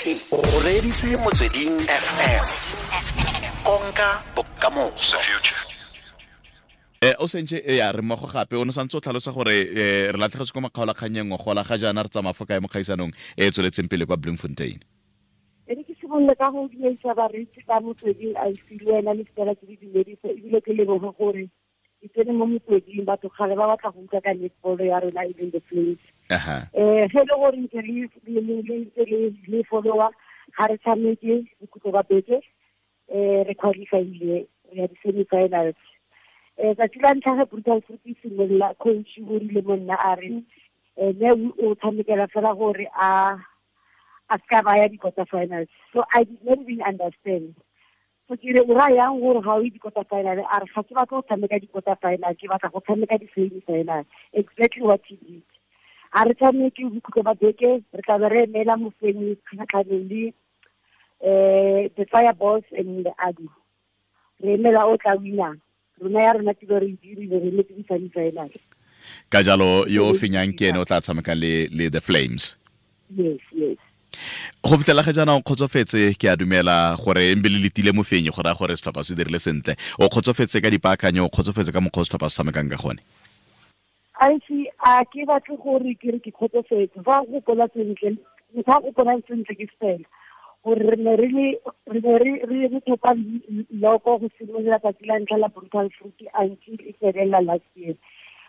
O reditse Motsweding FM, konka bokamoso. O sentse ya re mmogo gape o ne santse o tlhalosa gore re latlhegetse ko makgaolakgannyeng ngogola ga jaana re tsamaya fo kae mo kgaisanong e e tsweletseng pele kwa Bloemfontein? E re ke simolole ka go dumedisa bareetsi ba Motsweding IC le wena le fela ke le dumedise, ebile ke leboge gore ke tsene mo motsweding. Batho kgale ba batla go utlwa ka netball ya rona, e leng the Flames. Ge e le gore ntse le followa, ga re tshameke bokhutlo ba beke, re qualifyile, re ya di-semi-finals. Tsatsi la ntlha ge Brutal Fruit e simolola, coach o rile mo nna a re ne o tshamekela fela gore a ska ba ya di-quarter finals. So I did not even understand. So ke re, o raya yang gore ga o ye di-quarter final? A re, ga ke batla go tshameka di-quarter final, ke batla go tshameka di-semi final. Exactly what he did. A re tshameke bokhutlo ba beke, re tla be re emela mofenyi kgatlhanong le the Fireballs and the Adu. Re emela o tla winang. Rona ya rona tiro re e dirile, re emetse di-semi final. Ka jalo yo o fenyang ke ene o tla tshameka le the Flames? Yes. Go fitlhela ga jaana o kgotsofetse? Ke a dumela gore embe le letile mofenyi, go raya gore setlhopha se dirile sentle. O kgotsofetse ka dipaakanyo, o kgotsofetse ka mokgwa o setlhopha se tshamekang ka gone? Aise, a ke batle gore ke re ke kgotsofetse. Fa go gopola sentle, motho a gopolang sentle ke fela gore re ne re le re ne re re re thopa loko go simolola tsatsi la ntlha la Brutal Fruit until e felela last year,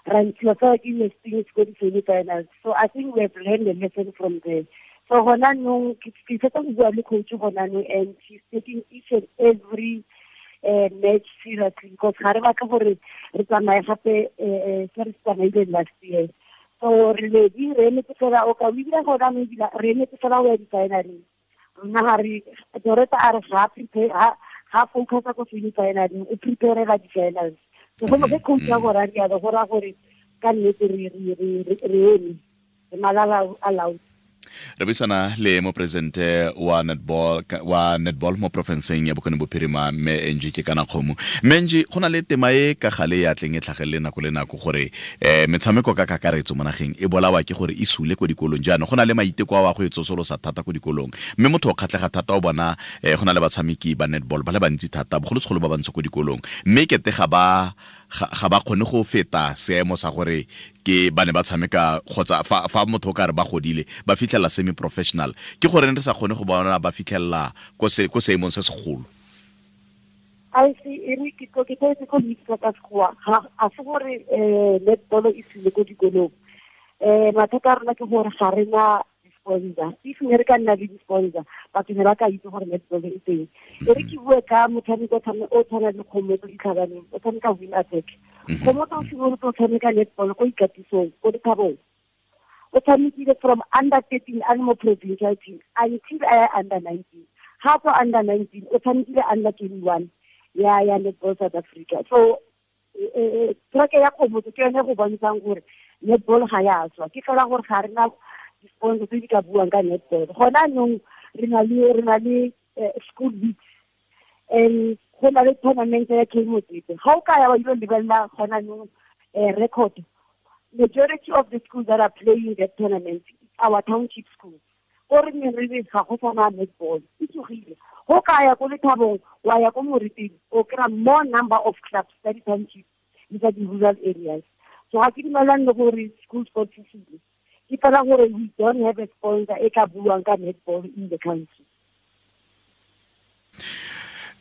ra ntshiwa fela ke Hastings ko di-semi finals. So I think we have learned a lesson from there. So gona nong ke fetsa go bua le coach gona nong, and she's taking each and every match seriously, because ga re batla gore re tsamaye gape se re se tsamaileng last year. So re ledi, re emetse fela o ka o ebile gona no ebile re emetse fela go ya di-finaleng. Rona ga re Doreta a re ga prepare, ga focusa ko semi finaleng, o preparela di-finals. So go ge coach ya gore a rialo, go raya gore ka nnete re eme, re malala a laotse. Re buisana le moporesidente wa netball mo porofenseng ya Bokone Bophirima, mme Angie ke kana kgomo. Mme Angie, go na le tema e ka gale ya tleng e tlhagelele nako le nako gore metshameko ka kakaretso mo nageng e bolawa ke gore e sule ko dikolong. Jaanong go na le maiteko a wa go e tsosolosa thata ko dikolong, mme motho o kgatlhega thata o bona go na le batshameki ba netball ba le bantsi thata, bogolosegolo ba bantsho ko dikolong, mme kete ga ba kgone go feta seemo sa gore ke ba ne ba tshameka, kgotsa fa motho o ka re ba godile ba fitlhela semi professional. Ke gore re sa kgone go bona ba fitlhelela ko seemong se segolo? Aise, e re ke tlo itse ka sekgowa. Ga a se gore netball e sile ko dikolong. Mathata a rona ke gore ga re na di-sponsor. If ne re ka nna le di-sponsor, batho ne ba ka itse gore netball e teng. E re ke bue ka motshameko o tshwana le Kgomotso Ditlhabaneng, o tshameka wing attack. Kgomotso o simolotse o tshameka netball ko ikatisong ko Dithabong. O tshamekile from under 13 a le mo provincial team until a ya under 19. Ga tswa under 19, o tshamekile under 21 ya Netball South Africa. So track ya Kgomotso ke yone go bontshang gore netball ga ya tswa, ke fela gore ga re na di-sponsor tse di ka buang ka netball. Gona anong re na le school leagues and go na le tournament ya K Motsepe. Ga o ka ya wa ile lebelela gona anong record, majority of the schools that are playing that tournament, our township schools, ko re ne re re ga go sana netball, e tsogile. Go ka ya ko Lethabong, wa ya ko Moriting, o kry-a more number of clubs tsa di-township le tsa di-rural areas. So ga ke dumelane le gore school sports e sile, ke fela gore we don't have a sponsor e ka buang ka netball in the country.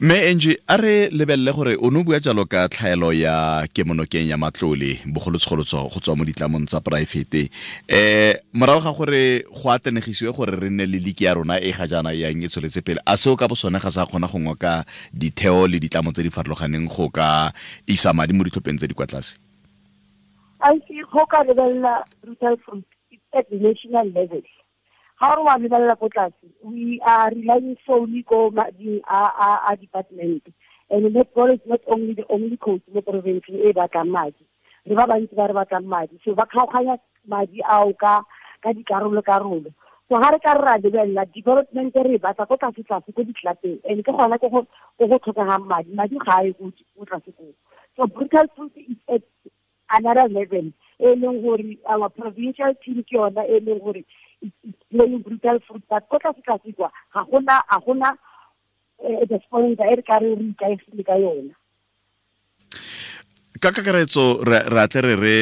Mme Angie, a re lebelele gore o ne o bua jalo ka tlhaelo ya kemonokeng ya matlole, bogolosegolo go tswa mo ditlamong tsa poraefete. Morago ga gore go atlanegisiwe gore re nne le league ya rona e ga jaana yang e tsweletse pele, a seo ka bo sone ga sa kgona go ngoka ditheo le ditlamo tse di farologaneng go ka isa madi mo ditlhopheng tse di kwa tlase? I see, go ka lebelela Brutal Fruit, it's at the national level. Ga re wa lebelela ko tlase, we are relying solely ko mading a department, and netball is not only the only coach mo provinceng e batlang madi. Re ba bantsi ba re batlang madi, so ba kgaoganya madi ao ka dikarolo karolo. So ga re ka re ra lebelela development, re e batla ko tlase tlase ko ditlapeng, and ke gona ko go tlhokegang madi. Madi ga a ye ko tlase koo. So Brutal Fruit is at another level, e leng gore our provincial team ke yona e leng gore it's playing brutal fruit, but ko tlase tlase kwa ga gona the sponsor e re ka re ikaegile ka yona. Ka kakaretso re atle re re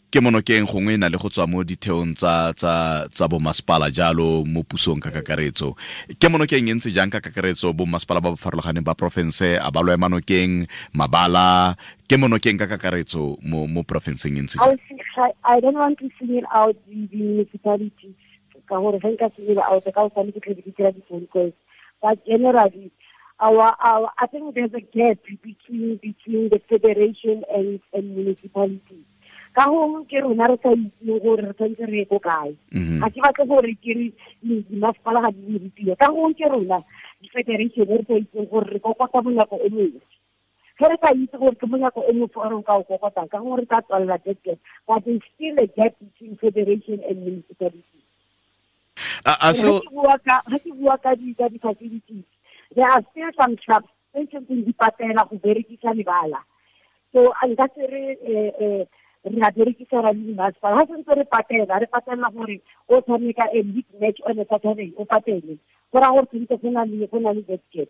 ke monokeng gongwe e na le go tswa mo ditheong tsa bomasepala jalo mo pusong ka kakaretso. Ke monokeng e ntse jang ka kakaretso bomasepala ba ba farologaneng ba porofense a ba lo ema nokeng mabala ke monokeng ka kakaretso mo porofenseng e ntse jang? I don't want to single out the municipalities ka gore ge nka single out ka o sane ke tle ke dira di-phone calls, but generally our I think there's a gap between the federation and municipalities. Ka gongwe ke rona re sa itseng gore re tshwanetse re ye ko kae. Ga ke batle gore ke re dimasepala ga di dire tiro. Ka gongwe ke rona di-federation re sa itseng gore re kokota monyako o mongwe. Ge re sa itse gore ke monyako o mongwe o re ka o kokotang, ka gongwe re tla tswalela that gap. But there's still a gap between federation and municipalities. Ga ke bua ka di-facilities, there are still some clubs tse tshwanetseng di patela go berekisa lebala. So nka se re re a berekisa ra le masepala. Ga sentse re patela gore o tshameka a league match on a Saturday, o patele. Go raya gore tshwanetse go na le that gap.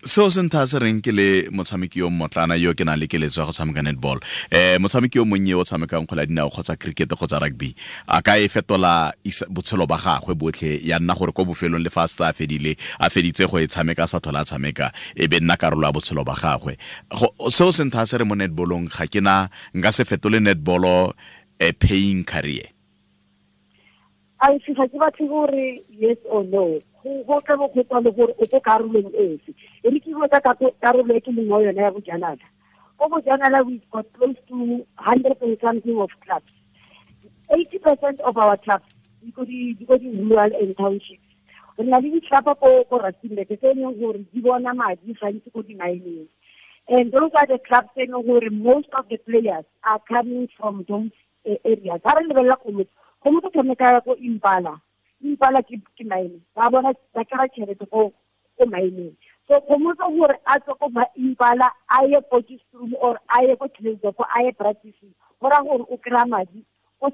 Seo se ntha se reng ke le motshameki yo mmotlana yo ke nang le keletso ya go tshameka netball, motshameki yo monnye o tshamekang kgwele ya dinao kgotsa cricket kgotsa rugby a ka e fetola botshelo ba gagwe botlhe ya nna gore ko bofelong le fa a setse a fedile a feditse go e tshameka a sa tlhola a tshameka e be nna karolo ya botshelo ba gagwe. Seo se ntha se re mo netballong ga ke na nka se fetole netballo a paying career. A ga ke batle gore yes or no, go tla bo go tswa le gore o ko karolong efe. E re ke bua ka karolo e ke leng mo yone ya bojanala. Ko bojanala we've got close to 100 and something of clubs. 80% of our clubs di ko di rural and townships. Re na le di-club ko Rustenburg tse e leng gore di bona madi gantsi ko di-mineng. And those are the clubs tse e leng gore most of the players are coming from those areas. Ga re lebelela Kgomotso tshameka ko Impala. Impala ke mine. Ba bona ba kry-a tšhelete ko mineng. So Kgomotso gore a tswe ko Impala a ye Potchefstroom or a ye ko Klerksdorp a ye practicing, go raya gore o kry-a madi ko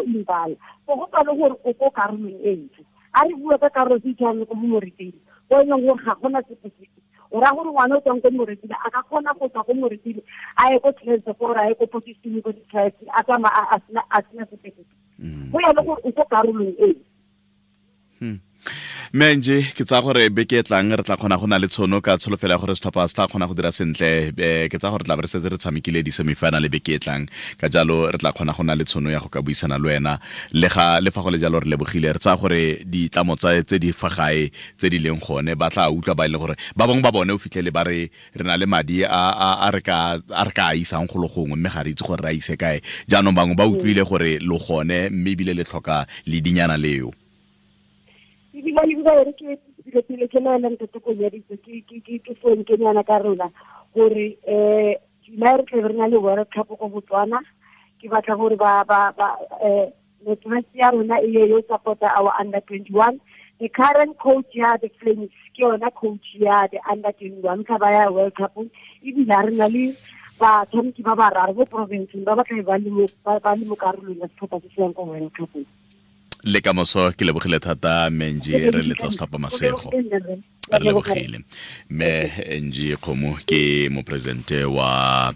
Impala. So go tswa le gore o ko karolong e ntle. A re bua ka karolo tse tshwanang ko Moretele, ko e leng gore ga gona sepe sepe. O raya gore ngwana o tswang ko Moretele a ka kgona go tswa ko Moretele a ye ko Klerksdorp or a ye ko Potchefstroom ko di-tribes a tsamaya a sena sepe sepe. Go ya le gore o ko karolong e. Menje ke tsa gore beke e tlang re tla kgona go na le tshono ka tsholofelo ya gore setlhopha se tla kgona go dira sentle. Ke tsa gore tla be re setse re tshamekile di-semifinal beke e tlang, ka jalo re tla kgona go na le tshono ya go ka buisana le wena. Le fa go le jalo re lebogile, re tsaya gore ditlamo tse di fa gae tse di leng gone ba tla utlwa ba e leng gore ba bangwe ba bone o fitlhele ba re re na le madi a re ka a isang go le gongwe mme ga re itse gore re a ise kae. Jaanong bangwe ba utlwile gore lo gone mme ebile le tlhoka ledinyana leo. Ebile re ke pele ke laela ntate Konyaditse ke phone ke nyana ka rona gore July re tle re na le World Cup ko Botswana. Ke batla gore ba network ya rona e ye yo support our under 21. The current coach ya the Flames ke yona coach ya the under 21 ka ba ya World Cup. Ebile re na le batshameki ba bararo bo province ba ba tla ba le mo karolong ya setlhopha se se yang ko World Cup. Le ka moso ke lebogile thata Menji, re letla setlhopha masego. Re lebogile. Mme Angie Kgomo ke moporesidente wa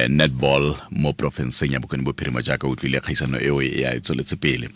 netball mo porofenseng ya Bokone Bophirima jaaka utlwile kgaisano eo e a e tsweletse pele.